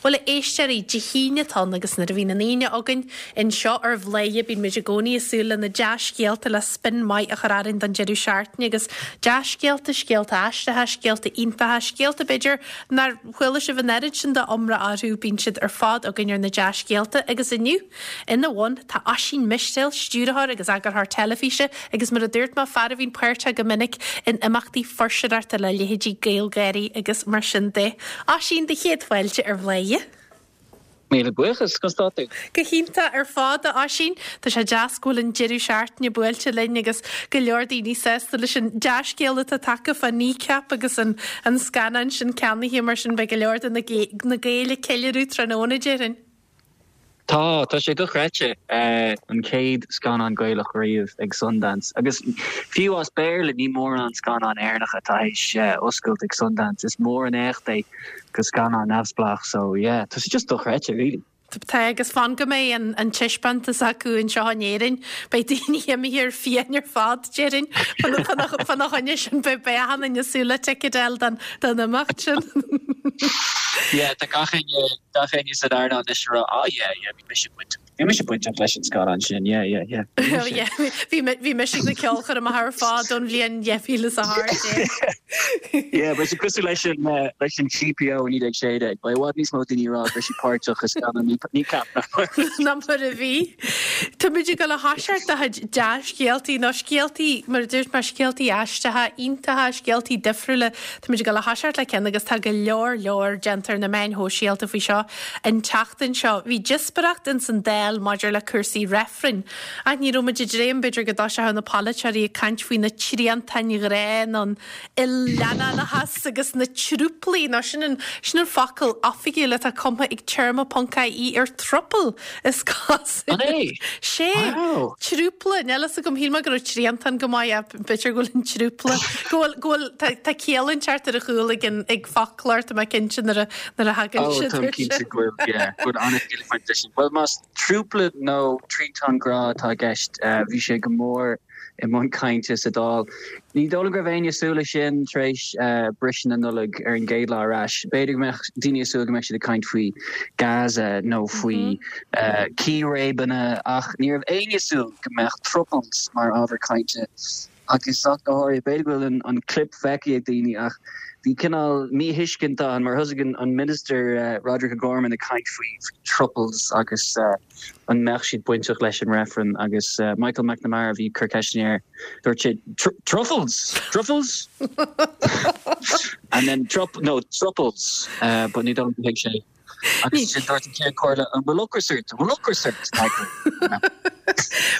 Bhuel, a éisteoirí, Dé hAoine atá ann agus nuair a bhíonn an Aoine againn anseo ar Bhladhaire bíonn muid i gcónaí ag súil le na dea-scéalta le spin maith a chur orainn don deireadh seachtaine agus dea-scéalta, scéalta aisteacha, scéalta iontacha, scéalta b'fhéidir nár chuala sibh an oiread sin de iomrá orthu, bíonn siad ar fad againn ar na dea-scéalta agus inniu, Ina bhun, tá Oisín Mistéil, stiúrthóir agus eagarthóir teilifíse agus mar a dúirt mé, fear a bhíonn páirteach go minic in imeachtaí fuirseoireachta le leithéidí GaelGÁIRÍ agus mar sin de. Oisín, do chéad fáilte ar Bhladhaire. Míle buíochas, conas tá tú? Go hiontach ar fad, a Oisín. Tá sé deas go bhfuil an deireadh seachtaine buailte linn agus go leor daoine sásta leis an dea-scéal atá tagtha fá Kneecap agus an scannán sin ceannaithe mar sin beidh go leor de na Gaeil ag ceiliúradh tráthnóna, déarfainn. Tá, tá sé dochreidte. An chéad scannán Gaelach riamh ag Sundance. Agus fiú as Béarla, ní mórán scannán Éireannach atá théis oscailt ag Sundance. Is mór an éacht é do scannán neamhspleách. So yeah, tá sé just dochreidte really. Tá, agus fan go mbeidh an taispeántas acu anseo in Éirinn, beidh daoine imithe ar fiáin ar fad, déarfainn. Fána choinne sin, beidh achan duine ag súil le ticéad a fháil don imeacht sin. Yeah, tá gach éinne Gach éinne san earnáil anois ag rá, ah yeah, yeah, bhí mise bainteach, bhí mise bainteach leis an scannán sin, yeah, yeah, yeah, bhí mise. Yeah, bhí, bhí mise ag na ceolchoirmeacha ar fad ón bhliain 2018. Yeah, beidh sé cosúil leis an, leis an GPO i 1916, beidh i bhfad níos mó daoine ag rá go raibh siad páirteach i scannán Kneecap ná mar. Ná mar a bhí. Táimid ag dul a thoiseacht do chuid dea-scéaltaí, nó scéaltaí, mar a dúirt mé, scéaltaí aisteacha, iontacha, scéaltaí difriúla Táimid ag dul a thoiseacht le ceann agus tá go leor leor déanta ar na meáin shóisialta faoi seo an tseachtain seo. Bhí díospóireacht ins an Dáil maidir le cúrsaí reifrinn. Ach ní raibh muid ag dréim b'fhéidir go dtoiseodh na polaiteoirí ag caint faoi na triantáin ghrá nó an il-leannánachas agus na trúplaí nó sin an sin an focal oifigiúil atá cumtha ag téarma ponc ie ar throuple is cosúil. An é? Sé! Wow! Trúpla, níl fhios agam, shíl mé go raibh triantán go maith ach b'fhéidir go bhfuil an trúpla, go bhfuil, go bhfuil, tá, tá ciall inteacht ar a chúl ag an, ag foclóir, tá mé cinnte nuair a, nuair a thagann Oh, siad táim air cinnte sin. go bhfuil, yeah, go bhfuil an-chiall ag baint leis sin. Bhuel, más trúpla nó triantán grá atá i gceist, bhí sé go mór i mbun cainte sa Dáil. Ní dóigh liom go raibh éinne ag súil leis sin tar éis briseadh na Nollag ar an gcéad lá ar ais. B'fhéidir go mbeadh daoine ag súil go mbeadh siad ag caint faoi Gaza nó faoi círéibeanna ach ní raibh éinne ag súil go mbeadh throuples mar ábhar cainte agus ach go háirithe. B'fhéidir go bhfuil an clip feicthe ag daoine ach bhí cineál míthuiscint ann mar thosaigh an Minister Roderic O'Gorman ag caint faoi throuples agus an mbeadh siad bainteach leis an reifreann agus Michael McNamara a bhí ag cur ceisteanna air, dúirt sé truffles! Truffles? And then trup, no, throuples, but ní dóigh liom gur thuig sé. Agus ansin dúirt an Ceann Comhairle, an bhfuil ocras ort? An bhfuil ocras ort, Michael?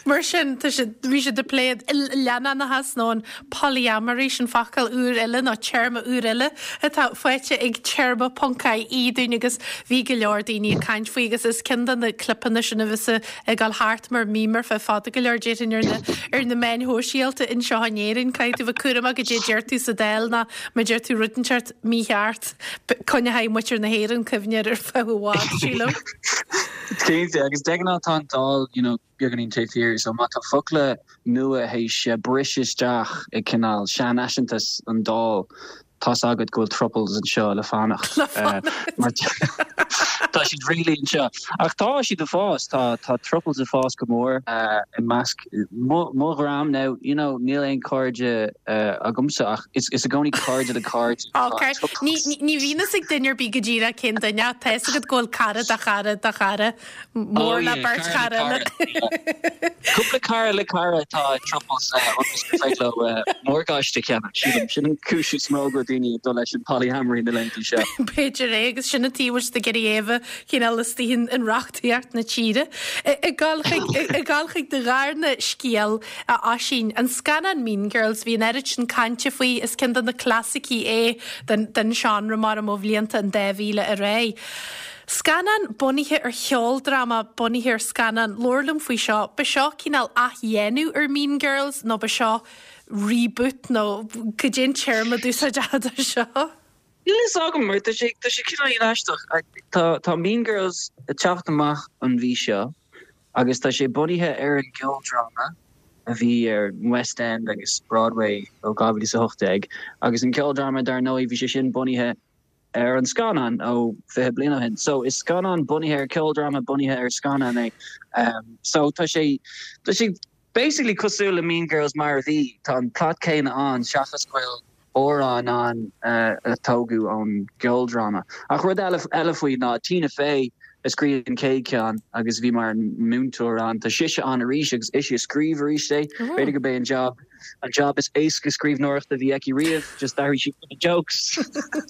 Mar sin, tá siad, bhí siad ag plé an il-leannánachas nó an polyamory, sin focal úr eile nó téarma úr eile atá faighte ag téarma ponc ie dúinn agus bhí go leor daoine ag caint faoi agus is ceann de na clipeanna sin a bheas ag dul thart mar meme ar feadh fada go leor déarfainn ar na ar na meáin shóisialta anseo in Éirinn. Caithfidh tú bheith cúramach goidé a deir tú sa Dáil nó má deir tú rud inteacht mícheart coinneoidh muintir na hÉireann cuimhne air ar feadh i bhfad, sílim. Cinnte, agus de ghnáth tá an Dáil, you know, beagáinín taobh thiar so má tá focla nua théis briseadh isteach i cineál seanfhaiseantas an Dáil tá's agat go bhfuil throuples anseo le fanacht. Le fanacht. Mar tá siad really anseo. Ach tá siad ag fás, tá tá throuples ag fás go mór i measc mo mo dhream now you know níl aon cairde agamsa ach is is i gcónaí cairde le cairde Ok. Ní ní bhíonn fhios ag duine ar bith go díreach cén duine ach tá fhios agat go bhfuil cara de chara de chara. Mór le beirt chara eile. Cúpla cara le cara atá i throuples ionas gur féidir leo morgáiste a cheannach, sílim. Sin an cúis is mó go bhfuil daoine ag dul leis an polyamory na laethanta seo. B'fhéidir é agus sin an tuige a bhfuil siad ag iarraidh é a bheith cineál istigh in reachtaíocht na tíre. Ag dul chuig ag dul chuig do dharna scéal, a Oisín, an scannán Mean Girls, bhí an oiread sin cainte faoi, is ceann de na clasaicí é den den seánra mar ó bhlianta an 2000 ar aghaidh. Scannán bunaithe ar cheoldráma bunaithe ar scannán. Labhair liom faoi seo. Ba seo cineál athdhéanamh ar Mean Girls nó ba seo reboot nó cad é an téarma a d'úsáidfeá do seo? Níl a fhios agam mar tá sé tá sé cineál aisteach. Tá tá Mean Girls ag teacht amach an mhí seo agus tá sé bunaithe ar an gceoldráma a bhí ar West End agus Broadway ó 2018 agus an ceoldráma dar ndóigh bhí sé sin bunaithe. ar an scannán ó 20 bliain ó shin. So is scannán bunaithe ar ceoldráma bunaithe ar scannán é. So tá sé tá sé basically cosúil le Mean Girls mar a bhí, tá an plot céanna ann seachas go bhfuil amhráin ann a tógadh ón gceoldráma. Ach rud eile eile faoi ná Tina Fey a scríobh an chéad cheann agus bhí mar múinteoir ann. Tá sise ann arís agus ise a scríobh arís é. B'fhéidir gurb é an job an job is éasca scríbhneoireachta a bhí aici riamh, just d'athraigh sí na jokes.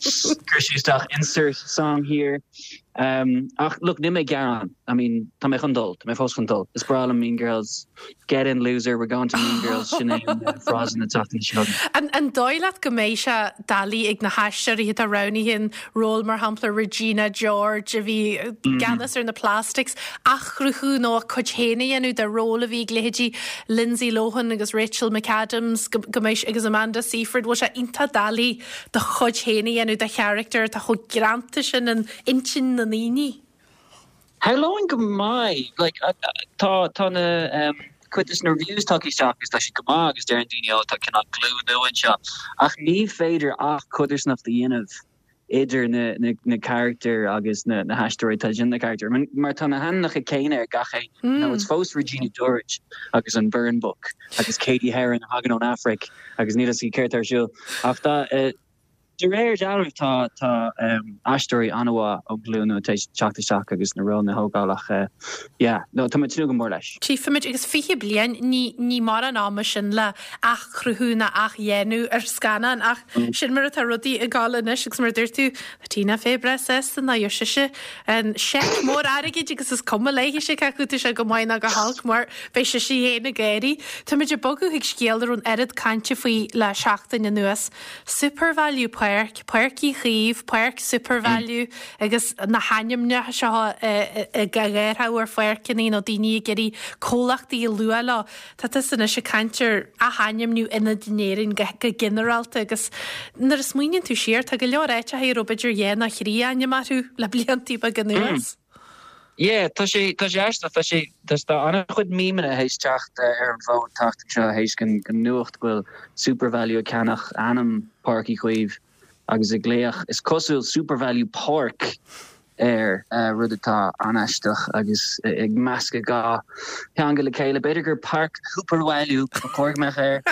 Chuir sí isteach insert song here. Um, ach look, níl mé ag gearán. I mean, tá mé chun dul, tá mé fós chun dul. Is breá liom Mean Girls. Get in loser, we're going to Mean Girls, sin é an frása na tseachtaine seo. An, an dóigh leat go mbeidh sé doiligh ag na haisteoirí atá roghnaithe an ról mar shampla Regina George a bhí i gceannas ar na Plastics, athchruthú nó a cuid féin a dhéanamh de ról a bhí ag leithéidí Lindsay Lohan agus Rachel McAdams go, go mbeidh, agus Amanda Seyfried, bhfuil sé iontach doiligh do chuid féin a dhéanamh de charachtar atá chomh greanta sin in intinn na ndaoine? Shamhlóinn go mbeidh. Like, tá, tá na, em, cuid des na reviews tagtha isteach agus tá siad go maith agus deireann daoine, oh, tá cineál glúin nua anseo. Ach ní féidir ach codarsnacht a dhéanamh idir na, na, na carachtair agus na, na haisteoirí atá ag déanamh na carachtair. Mar tá na hainmneacha céanna ar gach éinne. You know, it's fós Regina George agus an Burn Book agus Cady Heron a thagann ón Afraic agus níl a fhios aici céard atá ar siúl. Ach tá, eh, De réir dealraimh tá tá aisteoirí an-mhaith ón ghlúin nua tar éis teacht isteach agus na rólanna a thógáil ach yeah no tá mé ag tnúth go mór leis. Tchífimid agus 20 bliain, ní ní mórán ama sin le athchruthú ná athdhéanamh ar scannán ach sin mar atá rudaí ag dul anois agus mar a dúirt tú, tá Tina Fey breá sásta ná gheobhaidh sise an seic mór airgid agus is cuma léithise cé acu tá sé go maith ná go holc mar beidh sise féin ag gáirí. Táimid ag bogadh chuig scéal a raibh an oiread cainte faoi le seachtain anuas. Supervalu Páirc, Páirc Uí Chaoimh, Páirc Supervalu agus na hainmneacha seo á gcaitheamh ar pháirceanna nó daoine ag iarraidh comhlachtaí a lua leo. Tá tusa anois ag caint ar athainmniú ionaid in Éirinn go ginearálta agus nuair a smaoiníonn tú siar tá go leor áiteacha a raibh b'fhéidir dhá nó thrí ainm orthu le bliantaí beaga anuas. Yeah, tá sé, tá sé aisteach, tá sé, tá, tá an-chuid memeanna théis teacht ar an bhfód an tseachtain seo théis den, den nuacht go bhfuil Supervalu ag ceannach ainm Páirc Uí Chaoimh agus ag glaoch, is cosúil, Supervalu Páirc air, rud atá an-aisteach agus ag meascadh dhá theanga le chéile. B'fhéidir gur Páirc Shupervalu ba chóir go mbeadh air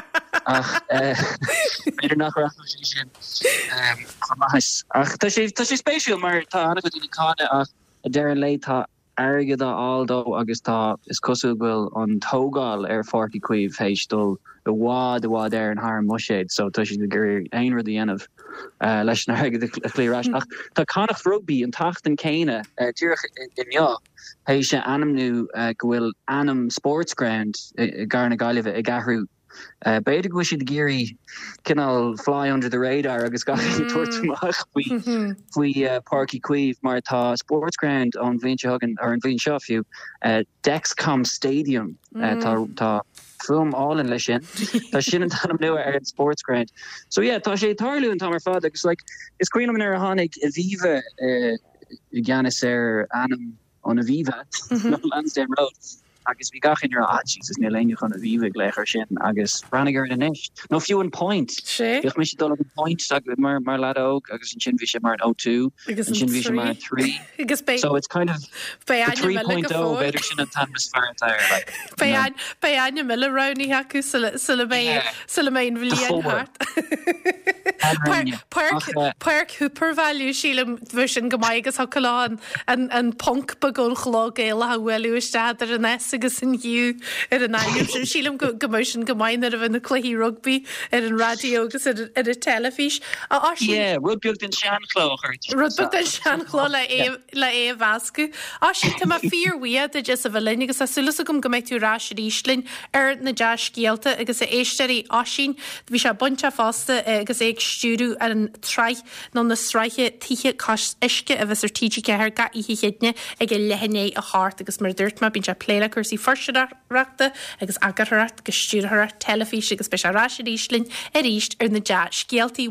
ach b'fhéidir nach rachadh sé sin chomh maith. Ach tá sé, tá sé spéisiúil mar tá an-chuid daoine ag cáineadh ach Ag deireadh an lae tá airgead á fháil dó agus tá, is cosúil go bhfuil an tógáil ar Pháirc Uí Chaoimh théis dul i bhfad, i bhfad Éireann thar an mbuiséad so tá siad ag iarraidh aon rud a dhéanamh leis an airgead a chloí ar ais. Ach tá Connacht Rugby an tseachtain céanna, díreach inniu, théis a ainmniú go bhfuil ainm Sportsground i gcathair na Gaillimhe ag athrú B'fhéidir go bhfuil siad ag iarraidh cineál fly under the radar agus gach éinne tabhairt amach faoi faoi Páirc Uí Chaoimh mar tá Sportsground ón bhliain seo chugainn, or an bhliain seo fiú, Dexcom Stadium. Tá tá fuaim álainn leis sin. Tá sin an t-ainm nua ar an Sportsground. So yeah, tá sé ag tarlú an t-am ar fad agus like is cuimhin liom nuair a tháinig Aviva i gceannas ar ainm an Aviva, nó Lansdowne Road, agus bhí gach éinne ag rá, ah Jesus, níl éinne chun Aviva ag glaoch air sin, agus breathnaigh air anois. Nó fiú an Point. Sea. Bhíodh mise ag dul ag an Point mar, mar leaid óg, agus ansin bhí sé mar an O2, Agus an ansin bhí sé mar an 3. Agus beidh, So it's kind of beidh the ainm eile 3.0, go fóill. b'fhéidir sin an t-ainm is fearr atá air, like, you Beidh know. ain, beidh ainm eile roghnaithe acu sula, sula mbeidh, Yeah. sula mbeidh an The bhliain 4. thart. Páirc, Páirc, Páirc Shupervalu, sílim, bheadh sin go maith agus thiocfadh leo an, an, an ponc beag ón chló Gaelach a bhualadh isteach idir an S agus an U ar an ainm sin. Sílim go, go mbeadh sin go maith nuair a bheidh na cluichí rugbaí ar an raidió agus ar, ar an teilifís. A Oisín. Yeah, rud beag den seanchló a chur Rud beag den seanchló le é, le é a mheascadh. Oisín, tá mé fíorbhuíoch duit as a bheith linn agus tá súil agam go mbeidh tú ar ais arís linn ar na dea-scéalta agus a éisteoirí Oisín, bhí sé bainteach fosta agus é ag stiúradh an tsraith nó na sraithe Tithe Cois Uisce a bheas ar TG4 gach oíche Chéadaoine ag a leath i ndiaidh a hocht agus mar a dúirt mé bíonn sé ag plé le cúrsaí fuirseoireachta agus eagarthóireacht agus stiúrthóireacht teilifíse agus beidh sé ar ais arís linn arís ar na dea-scéaltaí.